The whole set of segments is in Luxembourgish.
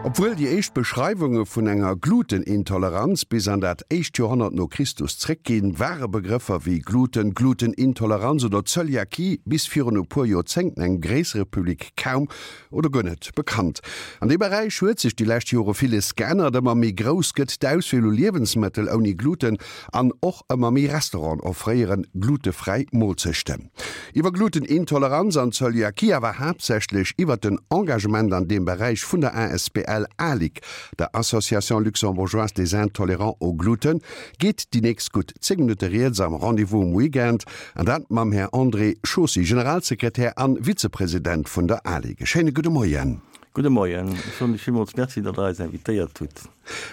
Obwuel déi éischt Beschreiwunge vun enger Glutenintoleranz bis an dat éischt Joerhonnert no Christus zréckginn, ware Begrëffer wéi Gluten, Glutenintoleranz oder Zöliakie bis virun e puer Joerzéngten engem gréissere Public kaum oder guer net bekannt. An deem Beräich huet sech déi lescht Jore villes geännert. Ëmmer méi grouss gëtt d'Auswiel u Liewensmëttel ouni Gluten an och ëmmer méi Restauranten offréieren glutefräi Moolzechten. Iwwer Glutenintoleranz an Zöliakie, awer haaptsächlech iwwer den Engagement an deem Beräich vun der asbl ALIG, der Association Luxembourgeoise des Intolérants au Gluten, geet déi nächst gutt 10 Minutte rieds am Rendez-vous um Weekend, an dat mam Här André Chaussy, Generalsekretär an Vizepresident vun der ALIG. E schéine gudde Moien. Gudde Moien. Ech soen lech villmools Merci, datt Der eis invitéiert hutt.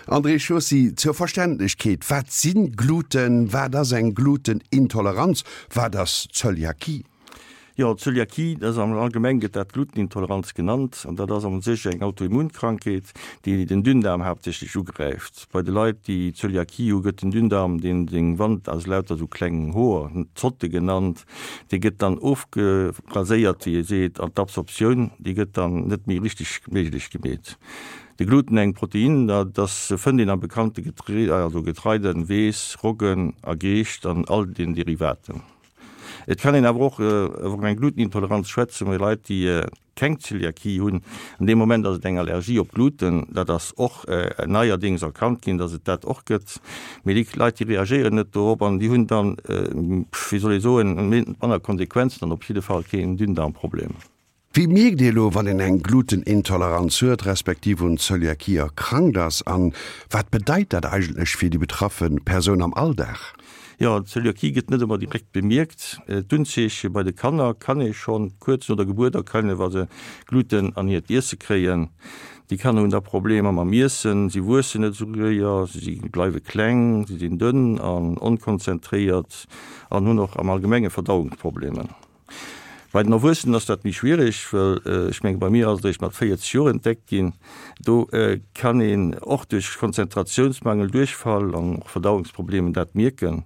André Chaussy, Zur Verständlechkeet, Wat si Gluten? Wat ass eng Glutenintoleranz? Wat ass Zöliakie? Jo, Zöliakie, dat ass am Allgemeng gëtt dat Glutenintoleranz genannt an dat ass a sech eng Autoimmunkrankheet, déi den Dünndaarm haaptsächlech ugräift. Bei de Leit, déi Zöliakie hu, gëtt den Dünndaarm, deen seng Wand aus lauter sou klengen Hoer, Zotte genannt, dee gëtt dann ofgeraséiert, wéi ee seet, an d'Absorptioun, déi gëtt dann net méi richteg méiglech gemeet. De Gluten, eng Protein, dat ass fënnt een am bekannte Getree, also Getreide, Weess, Roggen a Geescht an all den Derivaten. Et kann een awer och iwwer eng Glutenintoleranz schwätzen bei Leit, déi keng Zöliakie hunn. An deem Moment ass et eng Allergie op Gluten. Dat ass och neierdéngs erkannt ginn, datt et dat och gëtt. Mee déi Leit, déi reagéieren net dorop an déi hunn dann, wéi soll ee soen, manner Konsequenzen an op jidde Fall keen Dünndarmproblem. Wéi mierkt ee lo, wann een eng Glutenintoleranz huet, respektiv un Zöliakie erkrankt ass? An wat bedeit dat eigentlech fir déi betraffe Persoun am Alldag? Jo, d'Zöliakie gëtt net ëmmer direkt bemierkt. D'Unzeeche bei de Kanner kann ee schonn kuerz no der Gebuert erkennen, wa se Gluten an hiert Iesse kréien. Déi Kanner hunn da Problemer mam Iessen, si wuessen net esou séier, si bleiwe kleng, si sinn dënn an onkonzentréiert an hunn och am Allgemenge Verdauungsproblemer. Bei den Erwuessenen ass dat méi schwierig, well ech menge bei mir ass et eréischt mat 40 Joer entdeckt ginn. Do kann een och duerch Konzentratiounsmangel, Duerchfall an och Verdauungsproblemen dat mierken.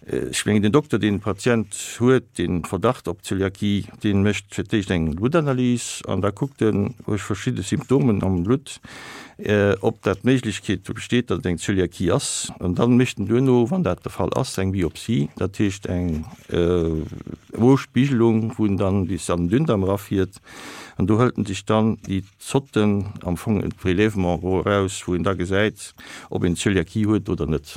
Ech mengen den Dokter, deen de Patient huet, deen Verdacht op Zöliakie, dee mécht fir d'éischt eng Bluttanalys an da kuckt en duerch verschidde Symptomen am Blutt, ob dat d'Méiglechkeet besteet, datt et eng Zöliakie ass. An dann mécht en duerno, wann dat de Fall ass, eng Biopsie, dat heescht eng Mospiegelung, wou en dann bis an den Dünndarm erafiert. An do hëlt en sech dann déi Zotten, am Fong e Prélèvement eraus, wou een da gesäit, ob een Zöliakie huet oder net.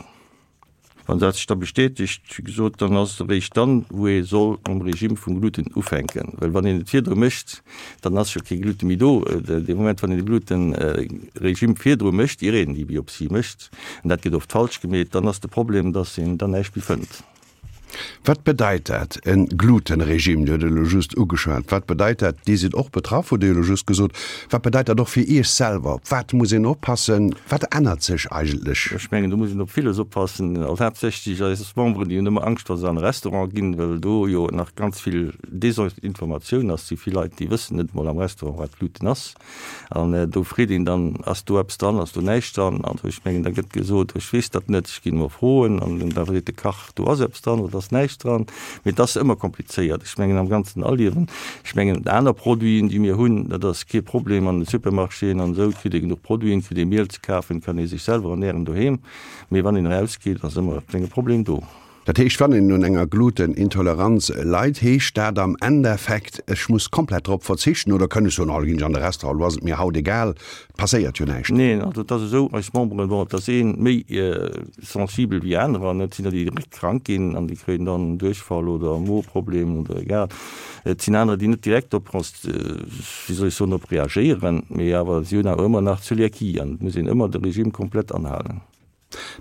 Wann dat sech da bestätegt, wéi gesot, dann ass et eréischt dann, wou ee soll mam Regime vum Gluten ufänken. Well wann een et virdru mécht, dann ass jo kee Glute méi do. Dee Moment, wann een de Gluten-Regime virdru mécht, ier een déi Biopsie mécht, an dat gëtt oft falsch gemeet, dann ass de Problem, dass een dann näischt méi fënnt. Wat bedeit dat, e Glutenregime? Dir hutt et elo just ugeschwat. Wat bedeit dat? Dir sidd och betraff, hutt Dir elo just gesot. Wat bedeit dat och fir Iech selwer? Op wat muss een oppassen? Wat ännert sech eigentlech? Ech mengen, do muss een op villes oppassen. Also haaptsächlech eis Memberen, déi hunn ëmmer Angscht, wa se an e Restaurant ginn, well do jo nach ganz vill Desinformatioun ass. Si vill Leit, déi wëssen net emol am Restaurant, wat Gluten ass. An do freet een dann, Ass do eppes dran, ass do näischt dran? An ech mengen, da gëtt gesot, Ech weess dat net, ech ginn emol froen. An da seet de Kach, Do ass eppes dran oder do ass näischt dran. Mee et ass ëmmer komplizéiert. Ech mengen, am ganzen Aliewen, ech mengen, aner Produiten, déi mir hunn, dat ass kee Problem an de Supermarchéen an esou, et kritt ee genuch Produiten, et kritt ee Miel ze kafen, et kann ee sech selwer ernären doheem. Mee wann een erausgeet, ass ëmmer e klenge Problem do. Dat heescht, wann een un enger Glutenintoleranz leit, heescht dat am Endeffekt, ech muss komplett drop verzichten oder kënn ech soen, oh, da ginn ech an de Restaurant, elo ass et mir haut egal, et passéiert jo näischt? Neen, also et ass esou, eis Memberen, bon, et ass ee méi sensibel wéi anerer, et sinn der, déi direkt krank ginn an déi kréien dann Duerchfall oder Moeproblem oder egal. Et sinn anerer, déi net direkt drop, wéi soll ech soen, drop reagéieren, mee awer si hunn awer ëmmer nach Zöliakie an et muss een ëmmer de Regime komplett anhalen.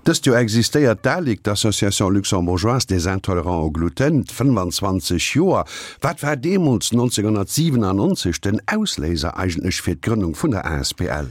Dëst Joer existéiert d'ALIG, d'Association luxembourgeoise des intolérants au gluten, 25 Joer. Wat war deemools, 1997, den Ausléiser eigentlech fir d'Grënnung vun der asbl?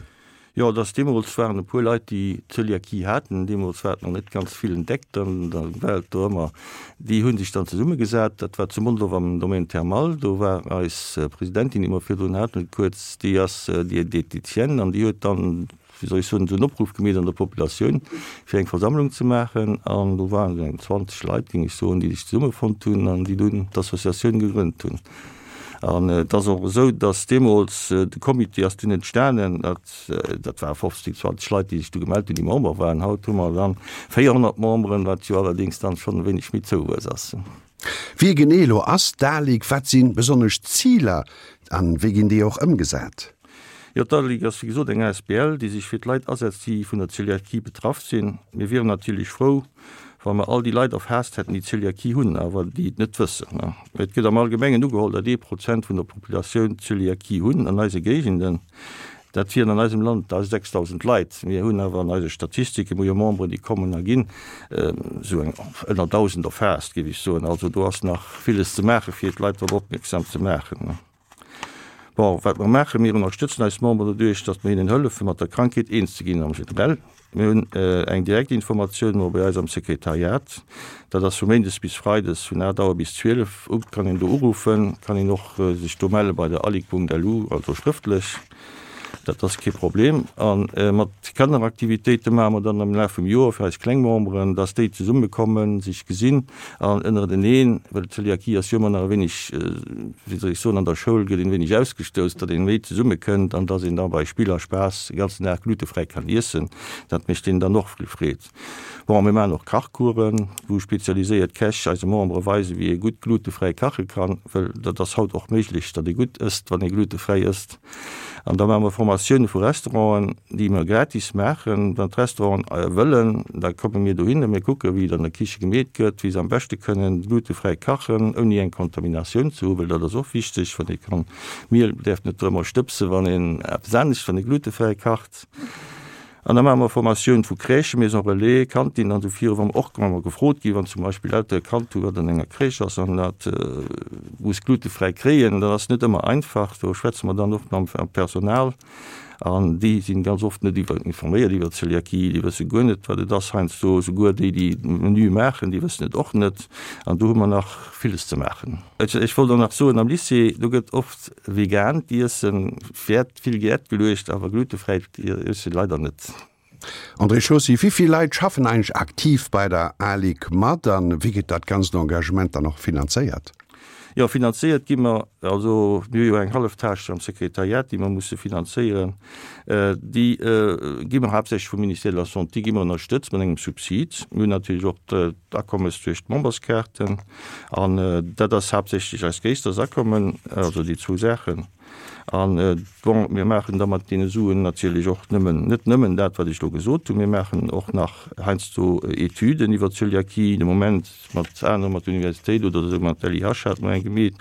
Jo, et ass deemools waren e puer Leit, déi Zöliakie haten. Deemools war et nach net ganz vill entdeckt an da war et do ëmmer, déi hu sech dann zesummegesat. Dat war zu Mondorf am Domaine Thermal. Do war eis Presidentin, déi mer virdrun haten, kuerz, déi ass Diététicienne an déi huet dann, wéi soll ech soen, esou en Opruff gemeet an der Populatioun, fir eng Versammlung ze maachen. An do waren esou eng 20 Leit, géing ech soen, déi sech zesummefonnt hunn an déi dunn d'Associatioun gegrënnt hunn. An et ass och esou, datt deemools de Comité ass dunn entstanen, dat dat ware 15, 20 Leit, déi sech du gemellt hunn, déi Member waren. Haut hu mer dann 400 Memberen, wat jo allerdéngs dann schonn e wéineg méi Zouwuess ass. Wie genee elo ass d'ALIC, wat si besonnesch d'Ziler an wéi ginn déi och ëmgesat? Jo, d'ALIC ass wéi gesot eng asbl, déi sech fir d'Leit asetzt, déi vun der Zöliakie betraff sinn. Mir wieren natierlech frou, wa mer all déi Leit erfaasst hätten, déi Zöliakie hunn, awer déi et net wëssen. Et gëtt am Allgemengen ugeholl, datt ee Prozent vun der Populatioun Zöliakie hunn an eise Géigenden. Dat wieren an eisem Land 6.000 Leit. Mir hunn awer an eise Statistiken, mir hu jo Memberen, déi kommen a ginn, esou eng ënner 1.000 erfaasst, géif ech soen. Also do ass nach villes ze maachen, fir d'Leit drop opmierksam ze maachen. Bon, wat mer maachen, Mir ënnerstëtzen eis Memberen doduerch, datt mer hinnen hëllefen, mat der Krankheet eens ze ginn am Generell. Mir hunn eng direkt Informatioun elo bei eis am Sekretariat. Dat ass vu méindes bis freides vun 8 Auer bis 12 u kann een do uruffen, kann een och sech do melle bei der alig.lu, also schrëftlech. Dat ass kee Problem. A mat Kanneraktivitéite maache mer dann am Laf vum Joer fir eis kleng Memberen, dass déi zesummekommen, sech gesinn an ënnereneen, well d'Zöliakie ass jo ëmmer nach e wéineg, wéi soll ech soen, an der Schoul gëtt een e wéineg ausgestouss, datt een méi zesummekënnt an dass een da bei Spill a Spaass de ganzen Dag glutefräi kann iessen. Dat mécht deenen dann och vill Freed. Bon, mir maachen och Kachcoursen, wou spezialiséiert Käch eise Membere weisen, wéi ee gutt glutefräi kache kann, well dat ass haut och méiglech, datt ee gutt ësst, wann ee glutefräi ësst. An da maache mer Formatioune vu Restauranten, déi mer gratis maachen. Wann d'Restauranten wëllen, da komme mir dohin a mir kucke wéi et an der Kiche gemeet gëtt, wéi se am beschte kënnen glutefräi kachen, ouni eng Kontaminatioun ze hu, well dat ass och wichteg, wann ee kann, Miel däerf net drëmmer stëbsen, wann een eppes anescht, wann ee glutefräi kacht. An da maache mer Formatioun vu Crèchen, Maison relais, Cantinen an esou viru, wa mer och wa mer gefrot ginn, wann zum Beispill Eltere e Kand hu wat an enger Crèche ass an dat muss glutefräi kréien, dat ass net ëmmer einfach. Do schwätze mer dann och mam Personal an déi sinn ganz oft net iwwer informéiert iwwer Zöliakie, déi wësse guer net wat et ass heiansdo, souguer déi déi Menüe maachen, déi wëssen et och net an do hu mer nach villes ze maachen. Ech wollt och nach soen, am Lycée, do gëtt oft vegaant Iessen Wäert vill Wäert geluecht, awer glutefräit Iessen leider net. André Chaussy, Wéi vill Leit schaffen eigentlech aktiv bei der ALIC mat an wéi gëtt dat ganzt Engagement dann och finanzéiert? Jo, finanzéiert gi mer, also mir hu jo eng hallef Tâche am Sekretariat, déi mer musse finanzéieren. Déi gi mer haaptsächlech vum Ministère de la Santé gi mer ënnerstëtzt mat engem Subsid. Mir hunn natierlech och d'Akommes duerch d'Memberskaarten an dat ass haaptsächlech eist gréissters Akommen, also déi zwou Saachen. An, bon, mir maachen da mat deene Suen natierlech och nëmmen, net nëmmen dat, wat ech elo gesot hunn, mir maachen och nach heiansdo Etüden iwwer Zöliakie, de Moment mat anere, mat der Universitéit oder esou, mat der LIH hate mer eng gemeet.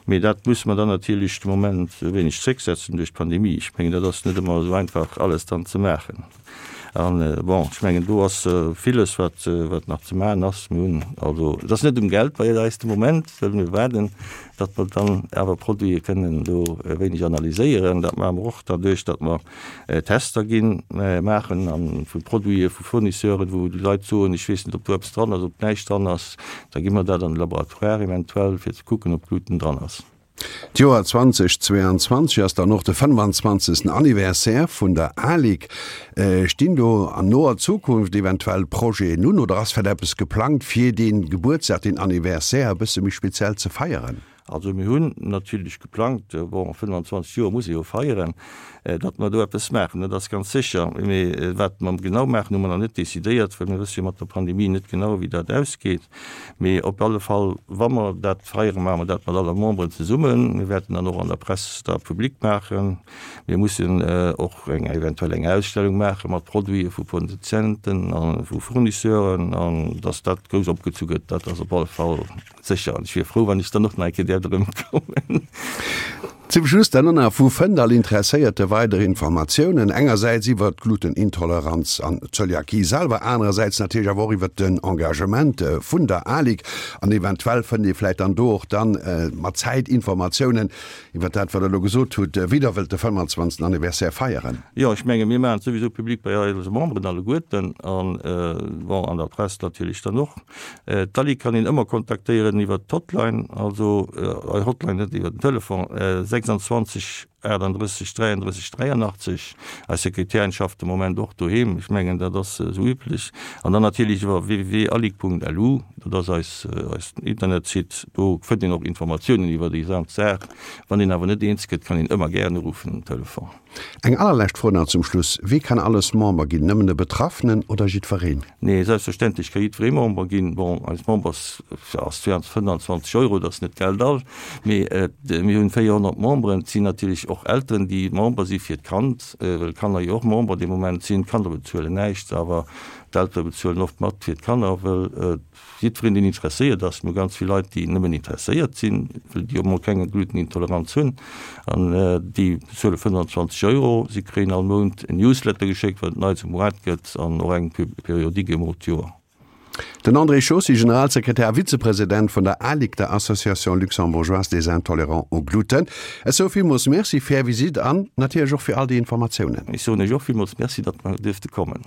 Mee dat musse mer dann natierlech de Moment e wéineg zrécksetzen duerch d'Pandemie. Ech mengen, dat ass net ëmmer esou einfach alles dann ze maachen. An, bon, ech mengen, do ass villes, wat, wat nach ze maachen ass. Mir hunn also, et ass net um Geld bei eis de Moment, well mir waarden, datt mer dann awer Produite kënnen do e wéineg analyséieren. Dat maache mer och derduerch, datt mer Tester ginn, maachen a vu Produite vu Fournisseuren, wou déi Leit soen, ech weess net, ob do eppes dran ass, ob näischt dran ass. Da gi mer dat an de Laboratoire eventuell, fir ze kucken, ob Gluten dran ass. D'Joer 2022 ass dann och de 25. Anniversaire vun der ALIC. Stinn do an noer Zukunft eventuell Projeten un oder ass vläicht eppes geplangt, fir dee Gebuertsdag, deen Anniversaire e bësse méi speziell ze feieren? Also mir hunn natierlech geplangt, bon 25 Joer muss ee jo feieren, datt mer do eppes maachen, dat ass ganz sécher. Mee wat mer genau maachen, hu mer nach net decidéiert, well mir wësse jo mat der Pandemie net genau, wéi dat ausgeet. Mee op alle Fall, wa mer dat feieren, maache mer dat mat alle Memberen zesummen. Mir wäerten dann och an der Press da public maachen. Mir mussen och eng eventuell eng Ausstellung maache mat Produite vu Produzenten a vu Fournisseuren an dass dat grouss opgezu gëtt, dat ass op alle Fall sécher. An ech wier frou, wann ech dann och nach eng Kéier däerft erëmkommen. Zum Schluss dann och nach, Wou fënnt all Interesséierte weider Informatiounen? Engersäits iwwert d'Glutenintoleranz an d'Zöliakie selwer, anerersäits natierlech awer och iwwert den Engagement vun der ALIC. An eventuell fënnt ee vläicht dann do och dann mat Zäit Informatiounen iwwert dat, wat Der elo gesot hutt, wéi Der wëllt de 25. Anniversaire feieren. Jo, ech menge mir maachen et souwisou public bei eise Memberen alleguerten an, bon, an der Press natierlech dann och. D'Ali kann een ëmmer kontaktéieren iwwert d'Hotline, also Hotline net iwwert den Telefon, 26. 38 33 83. Eis Sekretärin schafft de Moment och doheem, ech mengen dat ass esou üblech. An dann natierlech iwwer www.alig.lu, dat ass eis eisen Internetsite, do fënnt een och Informatiounen iwwer déi gesamt Saach. Wann een awer net eens gëtt, kann een ëmmer gären uruffen um Telefon. Eng allerlescht Fro nach zum Schluss, Wie kann alles Member ginn? Nëmmen de Betraffenen oder jiddwereen? Nee, selbstverständlech ka jiddweree Member ginn. Bon, eis Members ass 25 Euro, dat ass net Geld all, mee mir hunn 400 Memberen. Et sinn natierlech och Elteren, déi Member si fir d'Kand, well d'Kanner jo och Member dee Moment sinn. D'Kanner bezuelen näischt, awer d'Eltere bezuelen oft mat fir d'Kanner, well Jiddwereen, deen interesséiert ass, mir hu ganz vill Leit, déi nëmmen interesséiert sinn, well déi och mol keng Glutenintoleranz hunn, an déi bezuele 25 Euro. Si kréien all Mount en Newsletter geschéckt, wat et Neits um Moart gëtt, an och eng Periodique emol d'Joer. Den André Chaussy, Generalsekretär a Vizepresident vun der ALIG, der Association luxembourgeoise des intolérants au gluten. Ech soe villmools Merci fir Är Visitt an natierlech och fir all déi Informatiounen. Ech soen Iech och villmools Merci, datt mer duerfte kommen.